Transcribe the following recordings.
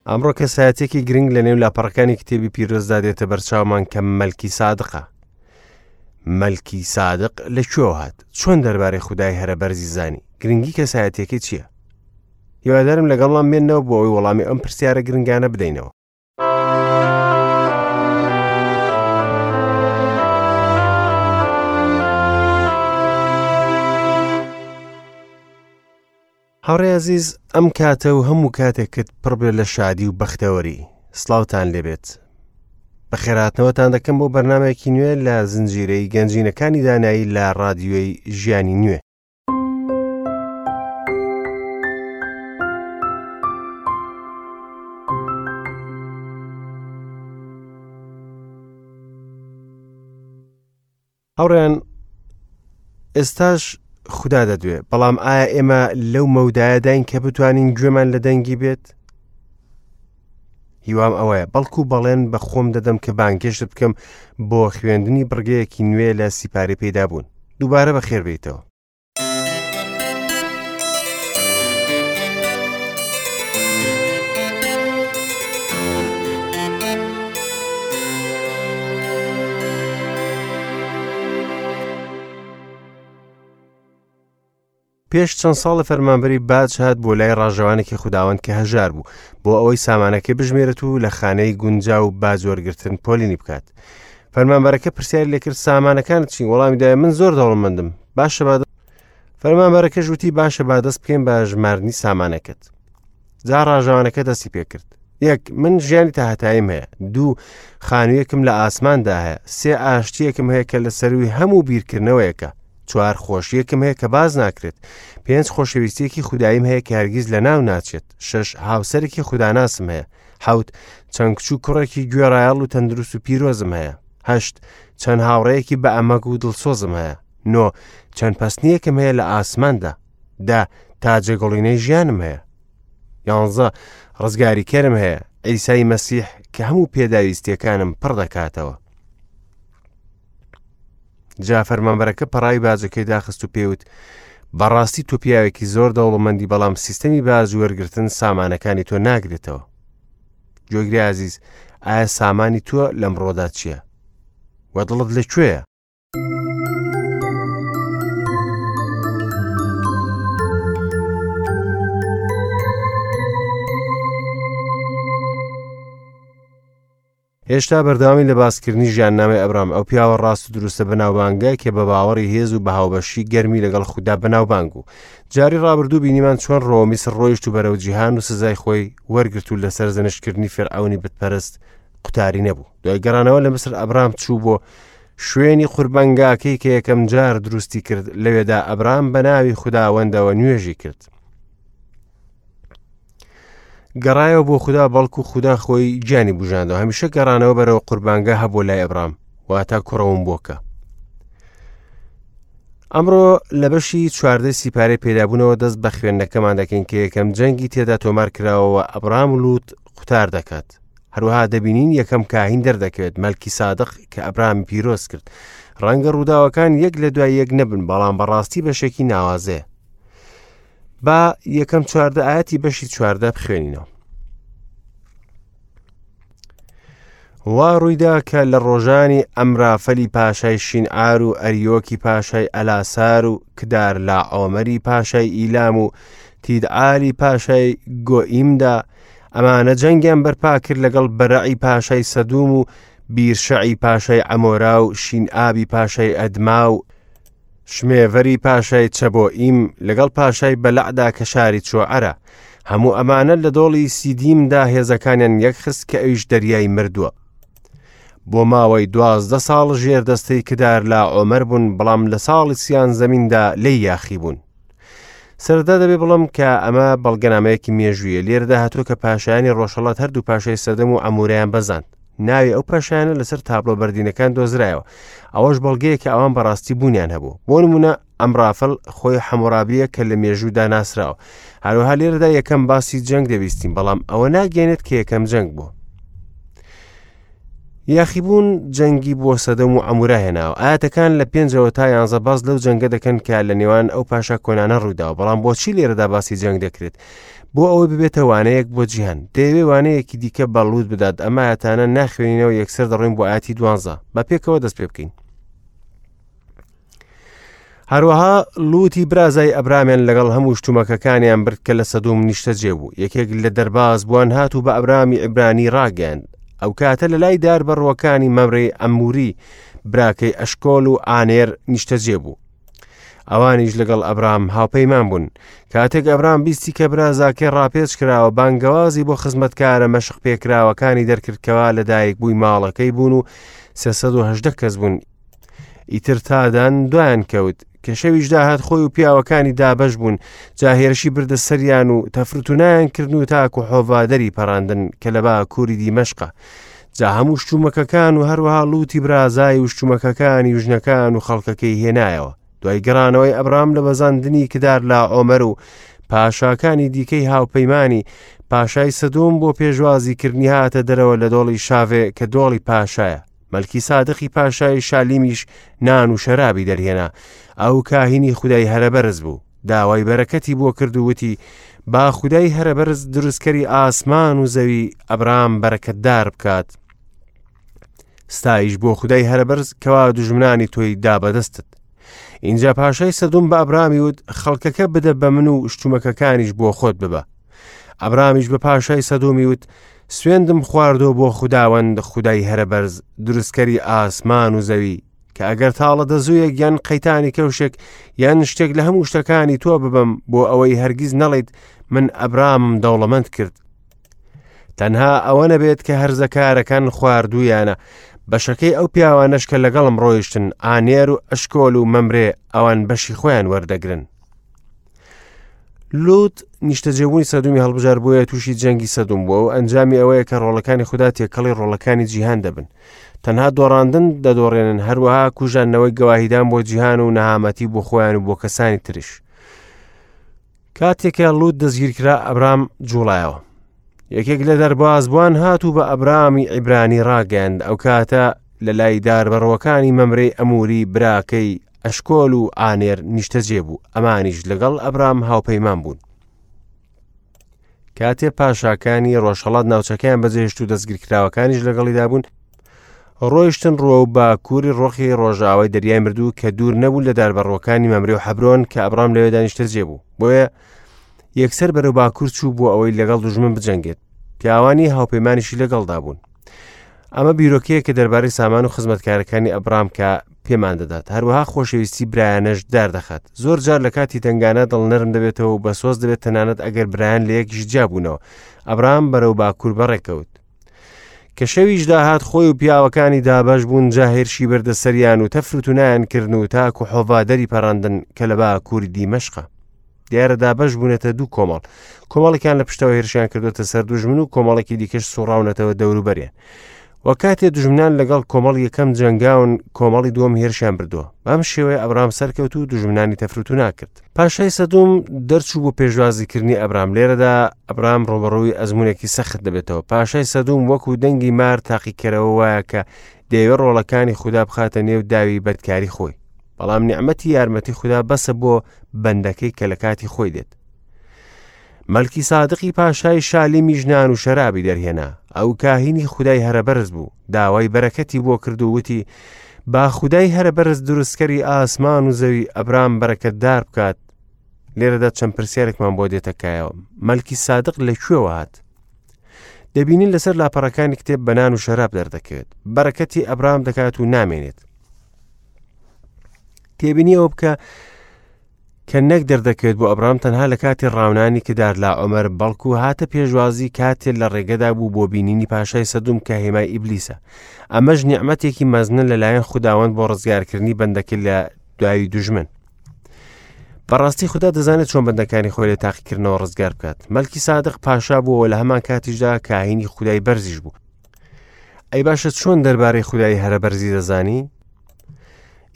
ئەمڕۆ کەسایەتێکی گرنگ لە نێو لاپەڕەکانی کتێبی پیرۆزدا دێتە بەرچاومان کە مەلکی سادقە. مەلکی سادق لە کوێوە هات؟ چۆن دەربارەی خودای هەرە بەرزی زانی؟ گرنگی کەسایەتیەکەی چییە؟ هیوادارم لەگەڵمان بێنەوە بۆ ئەوەی وەڵامی ئەم پرسیارە گرنگانە بدەینەوە. هاوڕێ ئەزیز ئەم کاتە و هەموو کاتێکت پڕ بێت لە شادی و بەختەوەری سڵاوتان لێبێت بەخێراتنەوەتان دەکەم بۆ بەرنمەیەکی نوێ لە زنجیرەی گەنجینەکانی دانایی لە ڕادیۆی ژیانی نوێ هاوڕێیان ئێستاش خودا دەدوێ بەڵام ئایا ئێمە لەو مەودایەداین کە بتوانین گوێمان لە دەنگی بێت هیوام ئەوەیە بەڵکو بەڵێن بە خۆم دەدەم کە بانگێشت بکەم بۆ خوێندنی بڕگەیەکی نوێ لە سیپاری پەیدا بوون دووبارە بەخێر بێیتەوە. پێش چەند ساڵە فەرمانبەری باج هات بۆ لای ڕاژەوانێکی خوداوەند کە هەژار بوو بۆ ئەوەی سامانەکەی بژمێرێت و لە خانەی گونجاو باج وەرگرتن پۆلینی بکات. فەرمانبەرەکە پرسیاری لێکرد سامانەکانت چین؟ وەڵامی دایە من زۆر دەوڵەمەندم. باشە با فەرمانبەرەکەش وتی باشە با دەست بکەین بە ژماردنی سامانەکەت. جا ڕاژەوانەکە دەستی پێکرد. یەک من ژیانی تاهەتاییم هەیە. دوو خانوویەکم لە ئاسماندا هەیە. سێ ئاشتییەکم هەیە کە لە سەرووی هەموو بیرکردنەوەیەکە. چوار خۆشیەکم هەیە کە باز ناکرێت. پێنج خۆشەویستیەکی خوداییم هەیە کە هەرگیز لە ناو ناچێت. شەش هاوسەرێکی خوداناسم هەیە. حەوت چەند کچ و کوڕێکی گوێڕایەڵ و تەندروست و پیرۆزم هەیە. هەشت چەند هاوڕێیەکی بە ئەمەگ و دڵسۆزم هەیە. نۆ چەند پەستنیەکم هەیە لە ئاسماندا. دە تاجەگوڵینەی ژیانم هەیە. یانزە ڕزگاریکەرم هەیە، عیسای مەسیح کە هەموو پێداویستیەکانم پڕ دەکاتەوە. جا فەرمانبەرەکە پەڕاوی باجەکەی داخست و پێوت بەڕاستی تۆ پیاوێکی زۆر دەوڵەمەندی بەڵام سیستەمی باج وەرگرتن سامانەکانی تۆ ناگرێتەوە گوێگری ئازیز ئایا سامانی تۆ لەمڕۆدا چییە؟ وە دڵت لەکوێیە؟ هێشتا بەردەوامی لە باسکردنی ژیاننامەی ئەبرام ئەو پیاوە ڕاست و دروستە بەناوبانگە کە بە باوەڕی هێز و بە هاوبەشی گەرمی لەگەڵ خودا بەناوبانگ بوو جاری ڕابردوو بینیمان چۆن ڕۆوە میسر ڕۆیشت و بەرەو جیهان و سزای خۆی وەرگرت و لەسەر زەنشتکردنی فێرعەونی بتپەرست قوتاری نەبوو دوای گەڕانەوە لە میسر ئەبرام چوو بۆ شوێنی قوربانگاکەی کە یەکەم جار دروستی کرد لەوێدا ئەبرام بە ناوی خوداوەندەوە نوێژی کرد گەڕایەوە بۆ خودا بەڵکو خودا خۆی گیانی بژاندەوە هەمیشە گەڕانەوە بەرەوە قوربانگە هەبوو لای ئەبرام واتە کوڕەوم بۆکە ئەمڕۆ لە بەشی چواردە سیپارەی پێدابوونەوە دەست بە خوێندنەکەمان دەکەین کە یەکەم جەنگی تێدا تۆمار کراوەوە ئەبرام لوت قوتار دەکات هەروەها دەبینین یەکەم کاهین دەردەکەوێت مەلکی سادق کە ئەبرامی پیرۆز کرد ڕەنگە ڕووداوەکان یەک لە دوای یەک نەبن بەڵام بەڕاستی بەشێکی ناوازەیە با یەکەم چواردە ئاەتی بەشی چواردە بخوێنینەوە وا ڕوویدا کە لە ڕۆژانی ئەمرافەلی پاشای شینعار و ئەریۆکی پاشای ئەلاسار و کدار لا ئۆمەری پاشای ئیلام و تیدعالی پاشای گۆئیمدا ئەمانە جەنگیان بەرپا کرد لەگەڵ بەرەعی پاشای سەدوم و بیرشەعی پاشای ئەمۆرا و شینئابی پاشای ئەدما و شمێڤەری پاشای چەبۆئیم لەگەڵ پاشای بەلەعدا کە شاری چۆعەرە. هەموو ئەمانە لە دۆڵی سیدیمدا هێزەکانیان یەکخست کە ئەویش دەریای مردووە. بۆ ماوەی دوازدە ساڵ ژێر دەستەی کدار لا ئۆمەر بوون، بەڵام لە ساڵی سیانزەمیندا لێی یاخی بوون. سەرەتا دەبێ بڵم کە ئەمە بەڵگەنامەیەکی مێژوویە لێرەدا هاتووە کە پاشایانی ڕۆژهەڵات هەردوو پاشای سەدەم و ئەموریان بەزاند ناوی ئەو پاشایانە لەسەر تابلۆ بەردینەکان دۆزرایەوە ئەوەش بەڵگەیە کە ئەوان بەڕاستی بوونیان هەبوو بۆ نمونە ئەمرافل خۆی حەمۆرابیە کە لە مێژوودا ناسراوە هەروەها لێرەدا یەکەم باسی جەنگ دەبیستین بەڵام ئەوە ناگەێنێت کە یەکەم جەنگ بوو یاخیبوون جەنگی بۆ سەدەم و عەمورا هێناوە. ئایەتەکان لە پێنجەوە تا یانزە باس لەو جەنگە دەکەن کە لە نێوان ئەو پاشا کۆنانە ڕوویداوە، بەڵام بۆچی لێرەدا باسی جەنگ دەکرێت؟ بۆ ئەوەی ببێتە وانەیەک بۆ جیهان. دەیەوێ وانەیەکی دیکە بە لوت بدات. ئەم ئایەتانە ناخوێنینەوە، یەکسەر دەڕۆین بۆ ئایەتی 12. با پێکەوە دەست پێ بکەین. هەروەها لوتی برازای ئەبرامیان لەگەڵ هەموو شتومەکەکانیان برد کە لە سەدوم نیشتەجێ بوو. یەکێک لە دەرباز بووان هات و بە ئەبرامی عیبرانی ڕاگەیاند. ئەو کاتە لە لای دار بەڕووەکانی مەمرەی ئەموری براکەی ئەشکۆل و ئانێر نیشتەجێ بوو. ئەوانیش لەگەڵ ئەبرام هاوپەیمان بوون. کاتێک ئەبرام بیستی کە برازاکەی ڕاپێچ کراوە، بانگەوازی بۆ خزمەتکارە مەشق پێکراوەکانی دەرکرد کەوا لەدایک بووی ماڵەکەی بوون و 318 کەس بوون. ئیتر تادان دوایان کەوت. کە شەویش داهات خۆی و پیاوەکانی دابەش بوون، جا هێرشی بردە سەریان و تەفرتونایان کردن و تاکو حۆڤا دەری پەڕاندن کە لە باکووری دیمەشقە. جا هەموو شتومەکەکان و هەروەها لوتی برازای و شتومەکەکانی و ژنەکان و خەڵکەکەی هێنایەوە. دوای گەڕانەوەی ئەبرام لە بەزاندنی کدار لا ئۆمەر و پاشاکانی دیکەی هاوپەیمانی، پاشای سەدۆم بۆ پێشوازیکردنی هاتە دەرەوە لە دۆڵی شاڤێ کە دۆڵی پاشایە. مەلکی سادقی پاشای شالیمیش نان و شەرابی دەرهێنا. ئەو کاهینی خودای هەرەبەرز بوو. داوای بەرەکەتی بۆ کرد و وتی، با خودای هەرەبەرز دروستکەری ئاسمان و زەوی ئەبرام بەرەکەتدار بکات. ستایش بۆ خودای هەرەبەرز کەوا دوژمنانی تۆی دا بەدەستت. ئینجا پاشای سەدوم بە ئەبرامی وت، خەڵکەکە بدە بە من و شتومەکەکانیش بۆ خۆت ببە. ئەبرامیش بە پاشای سەدومی وت، سوێندم خواردۆ بۆ خوداوەند خودای هەرەبەرز دروستکەری ئاسمان و زەوی کە ئەگەر تاڵە دەزوویەک یان قەیتانی کەوشێک یان شتێک لە هەموو شتەکانی تۆ ببەم بۆ ئەوەی هەرگیز نەڵیت من ئەبرامم دەوڵەمەند کرد تەنها ئەوە نەبێت کە هەرزەکارەکان خواردوویانە بەشەکەی ئەو پیاوانەش کە لەگەڵم ڕۆیشتن ئانێر و ئەشکۆل و مەمرێ ئەوان بەشی خۆیان وەردەگرن لوت نیشتەجێبوونی سەدومی هەڵبژار بۆیە تووشی جەنگی سەدوم بووە و ئەنجامی ئەوەیە کە ڕۆڵەکانی خودا تێکەڵی ڕۆڵەکانی جیهان دەبن تەنها دۆڕاندن دەدۆڕێنن هەروەها کوژاندنەوەی گەواهیدان بۆ جیهان و نەهامەتی بۆ خۆیان و بۆ کەسانی تریش کاتێک کە لوت دەستگیرکرا ئەبرام جوڵایەوە یەکێک لە دەربازبووان هات و بە ئەبرامی عیبرانی ڕاگەیاند ئەو کاتە لە لای داربەڕووەکانی مەمرەی ئەموری براکەی ئەشکۆل و ئانێر نیشتەجێ بوو، ئەمانیش لەگەڵ ئەبرام هاوپەیمان بوون. کاتێ پاشاکانی ڕۆژهەڵات ناوچەکەیان بەجێهێشت و دەستگیرکراوەکانیش لەگەڵیدا بوون، ڕۆیشتن ڕووە و باکووری ڕۆخی ڕۆژاوای دەریای مردوو کە دوور نەبوو لە داربەڕووەکانی مەمرێ و حەبرۆن کە ئەبرام لەوێدا نیشتەجێ بوو. بۆیە یەکسەر بەرەو باکوور چوو بۆ ئەوەی لەگەڵ دوژمن بجەنگێت. پیاوانی هاوپەیمانیشی لەگەڵدا بوون. ئەمە بیرۆکەیەکە دەربارەی سامان و خزمەتکارەکانی ئەبرام کە پێمان دەدات هەروەها خۆشەویستی برایانەش داردەخات زۆر جار لە کاتی تەنگانە دڵنەرم دەبێتەوە و بەسۆز دەبێت تەنانەت ئەگەر برایان لە یەکیش جیابوونەوە ئەبرام بەرەو باکوور بەڕێکەوت کە شەویش داهات خۆی و پیاوەکانی دابەش بوون جا هێرشی بردە سەریان و تەفروتونایان کردن و تاکو حۆڤا دەری پەڕاندن کە لە باکووری دیمەشقە دیارە دابەش بوونەتە دوو کۆمەڵ کۆمەڵێکیان لە پشتەوە هێرشیان کردوتە سەر دوژمن و کۆمەڵێکی دیکەش سوڕاونەتەوە دەوروبەریان و کاتێ دوژمنان لەگەڵ کۆمەڵ یەکەم جەنگاون کۆمەڵی دووەم هێرشیان بردووە بەم شێوەیە ئەبرام سەرکەوت و دوژمنانی تەفروتو ناکرد پاشای سەدوم دەرچوو بۆ پێشوازیکردنی ئەبرام لێرەدا ئەبرام ڕوبەڕووی ئەزمونێکی سەخت دەبێتەوە پاشای سەدوم وەکو دەنگی مار تاقیکەرەوە وایە کە دەیەوێت ڕۆڵەکانی خودا بخاتە نێو داوی بەدکاری خۆی بەڵام نیعمەتی یارمەتی خودا بەسە بۆ بەندەکەی کە لە کاتی خۆی دێت. مەلکی سادقی پاشای شالیمی ژنان و شەرابی دەرهێنا ئەو کاهینی خودای هەرەبەرز بوو داوای بەرەکەتی بۆ کرد و وتی با خودای هەرەبەرز دروستکەری ئاسمان و زەوی ئەبرام بەرەکەتدار بکات لێرەدا چەند پرسیارێکمان بۆ دێتە کایەوە مەلکی سادق لە کوێوە هات دەبینین لەسەر لاپەڕەکانی کتێب بەنان و شەراب دەردەکەوێت بەرەکەتی ئەبرام دەکات و نامێنێت تێبینی ئەوە بکە کە نەک دەردەکەوێت بۆ ئەبرام تەنها لە کاتی ڕاونانی کدار لا عمر بەڵکو هاتە پێشوازی کاتێ لە ڕێگەدا بوو بۆ بینینی پاشای سەدوم کە هێمای ئیبلیسە ئەمەش نیعمەتێکی مەزنە لەلایەن خوداوەند بۆ ڕزگارکردنی بەندەکە لە دوایی دوژمن بەڕاستی خدا دەزانێت چۆن بەندەکانی خۆی لە تاقیکردنەوە ڕزگار بکات مەلکی سادق پاشا بووەوە لە هەمان کاتیشدا کاهینی خودای بەرزیش بوو ئەی باشە چۆن دەربارەی خودای هەرە بەرزی دەزانی؟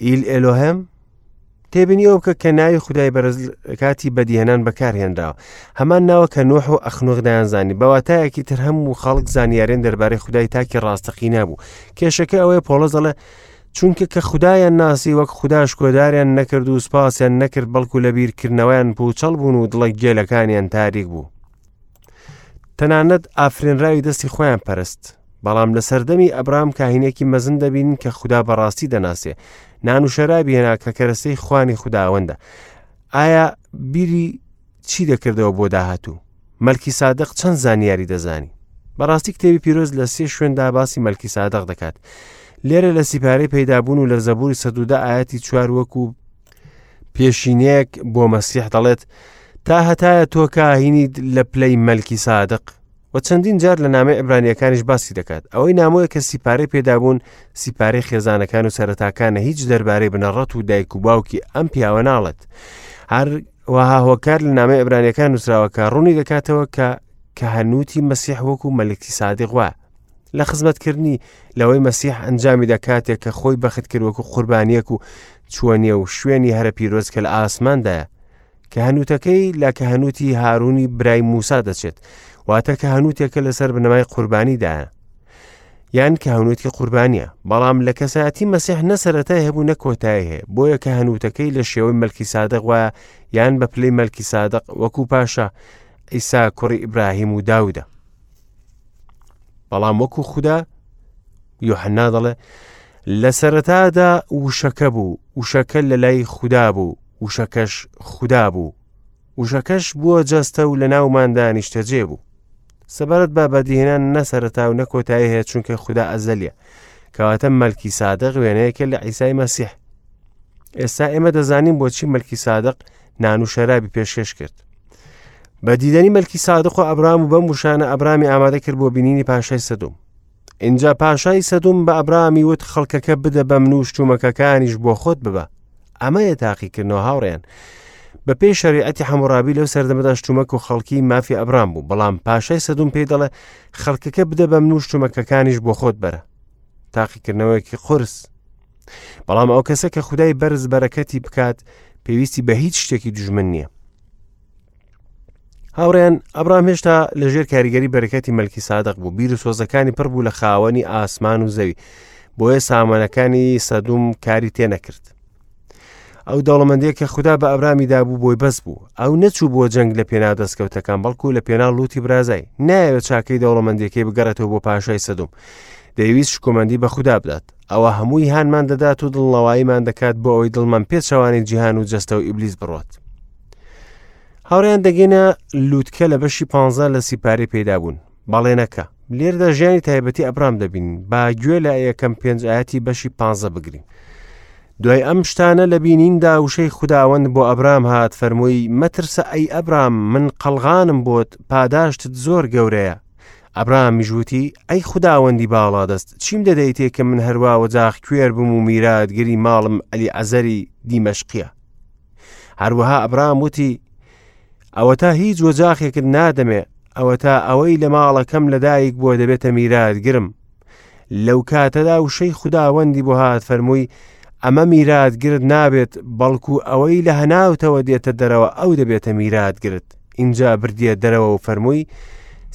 ئیل ئێلۆهێم تێبینی ئەو بکە کە ناوی خودای بەرز کاتی بەدیهێنان بەکارهێنراوە هەمان ناوە کە نوح و ئەخنوخ دەیانزانی بەواتایەکی تر هەموو خەڵک زانیارێن دەربارەی خودای تاکی ڕاستەقینە بوو کێشەکە ئەوەیە پۆڵس دەڵێ چونکە کە خودایان ناسی وەک خودا شکۆداریان نەکرد و سوپاسیان نەکرد بەڵکو لە بیرکردنەوەیان پوچەڵ بوون و دڵە گێلەکانیان تاریک بوو. تەنانەت ئافرێنراوی دەستی خۆیان پەرست. بەڵام لە سەردەمی ئەبرام کاهینێکی مەزن دەبینین کە خودا بەڕاستی دەناسێ. نان و شەرابی هێنا کە کەرەسەی خوانی خوداوەندە. ئایا بیری چی دەکردەوە بۆ داهاتوو؟ مەلکی سادق چەند زانیاری دەزانی؟ بەڕاستی کتێبی پیرۆز لە سێ شوێندا باسی مەلکی سادق دەکات. لێرە لە سیپارەی پەیدابوون و لە زەبوری 110 ئاەتی چوار وەکو پێشینەیەک بۆ مەسیح دەڵێت تا هەتایە تۆ کاهینیت لە پلەی مەلکی سادق و چەندین جار لە نامەی عیبرانیەکانیش باسی دەکات ئەوەی نامۆیە کە سیپارەی پێدابوون سیپارەی خێزانەکان و سەرەتاکانە هیچ دەربارەی بنەڕەت و دایک و باوکی ئەم پیاوە ناڵێت هەر وەها هۆکار لە نامەی عیبرانیەکان نووسراوە کە ڕوونی دەکاتەوە کە کە هەنووتی مەسیح وەکو مەلکی سادق وایە لە خزمەتکردنی لەوەی مەسیح ئەنجامی دەکاتێک کە خۆی بەخت کرد وەکو قوربانیەک و چووە نێو شوێنی هەرە پیرۆز کە لە ئاسماندایە کە هەنووتەکەی لە کە هەنووتی هارونی برای موسا دەچێت واتە کە هەنووتێکە لەسەر بنەمای قوربانیدایە یان کە هەنووتی قوربانیە بەڵام لە کەسایەتی مەسیح نە سەرەتای هەبوو نە کۆتایی هەیە بۆیە کە هەنووتەکەی لە شێوەی مەلکی سادق وایە یان بە پلەی مەلکی سادق وەکو پاشا ئیسا کوڕی ئیبراهیم و داودە بەڵام وەکو خودا یۆحەنا دەڵێ لە سەرەتادا وشەکە بوو وشەکە لە لای خودا بوو وشەکەش خودا بوو وشەکەش بووە جەستە و لە ناوماندا نیشتەجێ بوو سەبارەت بە بەدیهێنان نە سەرەتا و نە کۆتایی هەیە چونکە خودا ئەزەلیە کەواتە مەلکی سادق وێنەیەکە لە عیسای مەسیح ئێستا ئێمە دەزانین بۆچی مەلکی سادق نان و شەرابی پێشکەش کرد بە دیدەنی مەلکی سادق و ئەبرام و بەم وشانە ئەبرامی ئامادە کرد بۆ بینینی پاشای سەدوم اینجا پاشای سەدوم بە ئەبرامی وت خەڵکەکە بدە بە من و شتومەکەکانیش بۆ خۆت ببە ئەمەیە تاقیکردنەوە هاوڕێن بە پێی شەریعەتی حەموڕابی لەو سەردەمەدا شتومەک و خەڵکی مافی ئەبرام بوو بەڵام پاشای سەدوم پێی دەڵێ خەڵکەکە بدە بە من و شتومەکەکانیش بۆ خۆت بەرە تاقیکردنەوەیەکی قورس بەڵام ئەو کەسە کە خودای بەرز بەرەکەتی بکات پێویستی بە هیچ شتێکی دژمن نییە هاوڕێن ئەبرام هێشتا لەژێر کاریگەری بەرەکەتی مەلکی سادق بوو بیر و سۆزەکانی پڕ بوو لە خاوەنی ئاسمان و زەوی بۆیە سامانەکانی سەدوم کاری تێ نەکرد ئەو دەوڵەمەندەیە کە خودا بە ئەبرامی دابوو بۆی بەس بوو ئەو نەچوو بۆ جەنگ لە پێناو دەستکەوتەکان بەڵکو لە پێناو لوتی برازای نایەوێت چاکەی دەوڵەمەندیەکەی بگەڕێتەوە بۆ پاشای سەدوم دەیویست شکۆمەندی بە خودا بدات ئەوە هەمووی هانمان دەدات و دڵنەواییمان دەکات بۆ ئەوەی دڵمان پێچەوانەی جیهان و جەستە و ئیبلیس بڕات هاوڕیان دەگەینە لووتکە لە بەشی پ لە سیپارەی پەیدابوون بەڵێنەکە لێردا ژیانی تایبەتی ئەبرام دەبین با گوێ لە یەکەم پێنج ئاەتی بەشی پ بگرین دوای ئەم شتانە لە بینیندا وشەی خوداوەند بۆ ئەبرام هات فەرمووی مەترسە ئەی ئەبرام من قەڵغانم بۆت پاداشتت زۆر گەورەیە ئەبرامیش وتی، ئەی خوداوەندی باڵادەست، چیم دەدەیتێ کە من هەروا وەجاخ کوێر بم و میراتگری ماڵم ئەلیعەزەری دیمەشقییە؟ هەروەها ئەبرام وتی، ئەوەتا هیچ وەجاخێکت نادەمێ، ئەوەتا ئەوەی لە ماڵەکەم لەدایک بووە دەبێتە میراتگرم. لەو کاتەدا وشەی خوداوەندی بۆ هات فەرمووی، ئەمە میراتگرت نابێت، بەڵکو ئەوەی لە هەناوتەوە دێتە دەرەوە ئەو دەبێتە میراتگرت. ئینجا بردیە دەرەوە و فەرمووی،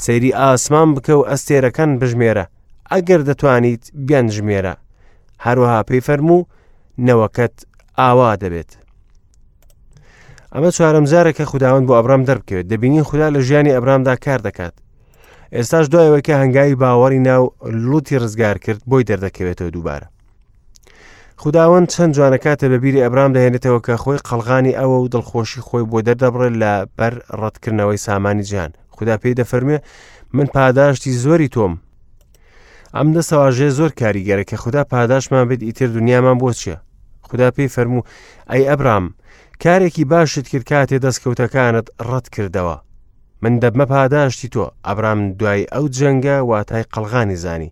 سەیری ئاسمان بکە و ئەستێرەکان بژمێرە، ئەگەر دەتوانیت بیانژمێرە. هەروەها پێی فەرموو، نەوەکەت ئاوا دەبێت. ئەمە چوارەم جارە کە خوداوەند بۆ ئەبرام دەربکەوێت دەبینین خودا لە ژیانی ئەبرامدا کار دەکات ئێستاش دوایەوەی کە هەنگاوی باوەڕی ناو لوتی ڕزگار کرد بۆی دەردەکەوێتەوە دووبارە خوداوەند چەند جوانە کاتێ بە بیری ئەبرام دەهێنێتەوە کە خۆی قەڵغانی ئەوە و دڵخۆشی خۆی بۆ دەردەبڕێت لە بەر ڕەتکردنەوەی سامانی جیهان خودا پێی دەفەرموێ من پاداشتی زۆری تۆم ئەم دەستەواژەیە زۆر کاریگەرە کە خودا پاداشمان بێت ئیتر دنیامان بۆ چییە خودا پێی فەرموو ئەی ئەبرام کارێکی باشت کرد کاتێ دەستکەوتەکانت ڕەت کردەوە من دەبمە پاداشتی تۆ ئەبرام دوای ئەو جەنگە واتای قەڵغانی زانی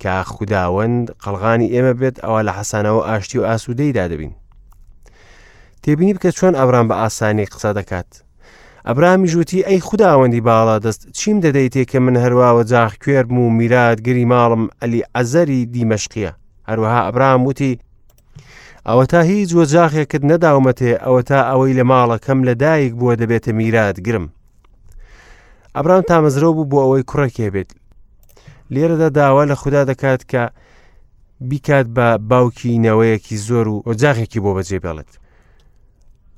کە خوداوەند قەڵغانی ئێمە بێت ئەوە لە حەسانەوە ئاشتی و ئاسوودەیدا دەبین تێبینی بکە چۆن ئەبرام بە ئاسانی قسە دەکات ئەبرامیش وتی ئەی خوداوەندی باڵا دەست چیم دەدەیتێ کە من هەروا وەجاخ کوێربم و میراتگری ماڵم ئەلی عەزەری دیمەشقیە هەروەها ئەبرام وتی ئەوەتا هیچ وەجاخێکت نەداومەتێ ئەوەتا ئەوەی لە ماڵەکەم لە دایک بووە دەبێتە میراتگرم ئەبرام تامەزرۆ بوو بۆ ئەوەی کوڕێکی هەبێت لێرەدا داوا لە خودا دەکات کە بیکات بە باوکی نەوەیەکی زۆر و ئۆجاغێکی بۆ بەجێ بێڵێت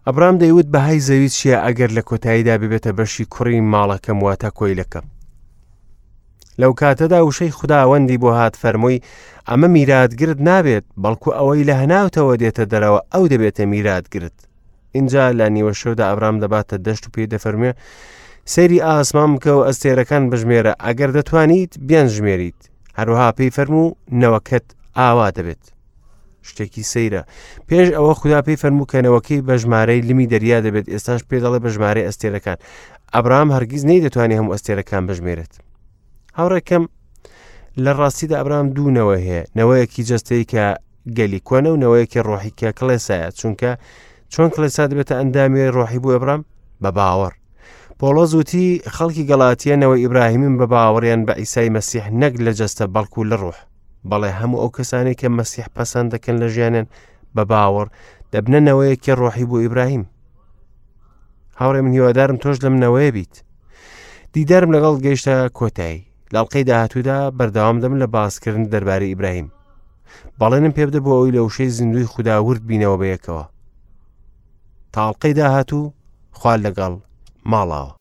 ئەبرام دەیوت بەهای زەوی چییە ئەگەر لە کۆتاییدا ببێتە بەشی کوڕی ماڵەکەم واتە کۆیلەکەم. لەو کاتەدا وشەی خوداوەندی بۆ هات فەرمووی ئەمە میراتگرت نابێت بەڵکو ئەوەی لە هەناوتەوە دێتە دەرەوە ئەو دەبێتە میراتگرت ئینجا لە نیوە شەودا ئەبرام دەباتە دەشت و پێی دەفەرموێ سەیری ئاسمان بکە و ئەستێرەکان بژمێرە ئەگەر دەتوانیت بیانژمێریت هەروەها پێی فەرموو نەوەکەت ئاوا دەبێت شتێکی سەیرە پێش ئەوە خودا پێی فەرموو کە نەوەکەی بە ژمارەی لمی دەریا دەبێت ئێستاش پێ دەڵێ بە ژمارەی ئەستێرەکان ئەبرام هەرگیز نەیدەتوانێت هەموو ئەستێرەکان بژمێرێت هاوڕێکەم لە ڕاستیدا ئەبرام دوونەوە هەیە نەوەیەکی جەستەی کە گەلی کۆنە و نەوەیەکی ڕۆحی کە کڵێسایە چونکە چۆن کڵێسا دەبێتە ئەندامی ڕۆحی بۆ ئەبرام بە باوەڕ پۆڵۆس وتی خەڵکی گەڵاتیە نەوەی ئیبراهیمن بە باوەڕیان بە ئیسای مەسیح نەک لە جەستە بەڵکو لە ڕۆح بەڵێ هەموو ئەو کەسانەی کە مەسیح پەسەند دەکەن لە ژیانیان بە باوەڕ دەبنە نەوەیەکی ڕۆحی بۆ ئیبراهیم هاوڕێ من هیوادارم تۆش لەم نەوەیە بیت دیدارم لەگەڵ گەیشتە کۆتایی لاڵقەی داهاتوودا بەردەوام دەم لە باسکردن دەربارەی ئیبراهیم بەڵێنم پێ بدە بۆ ئەوی لە وشەی زیندوی خودا ورد بینەوە بەیەکەوە تاڵقەی داهاتوو خوا لەگەڵ ماڵاوە.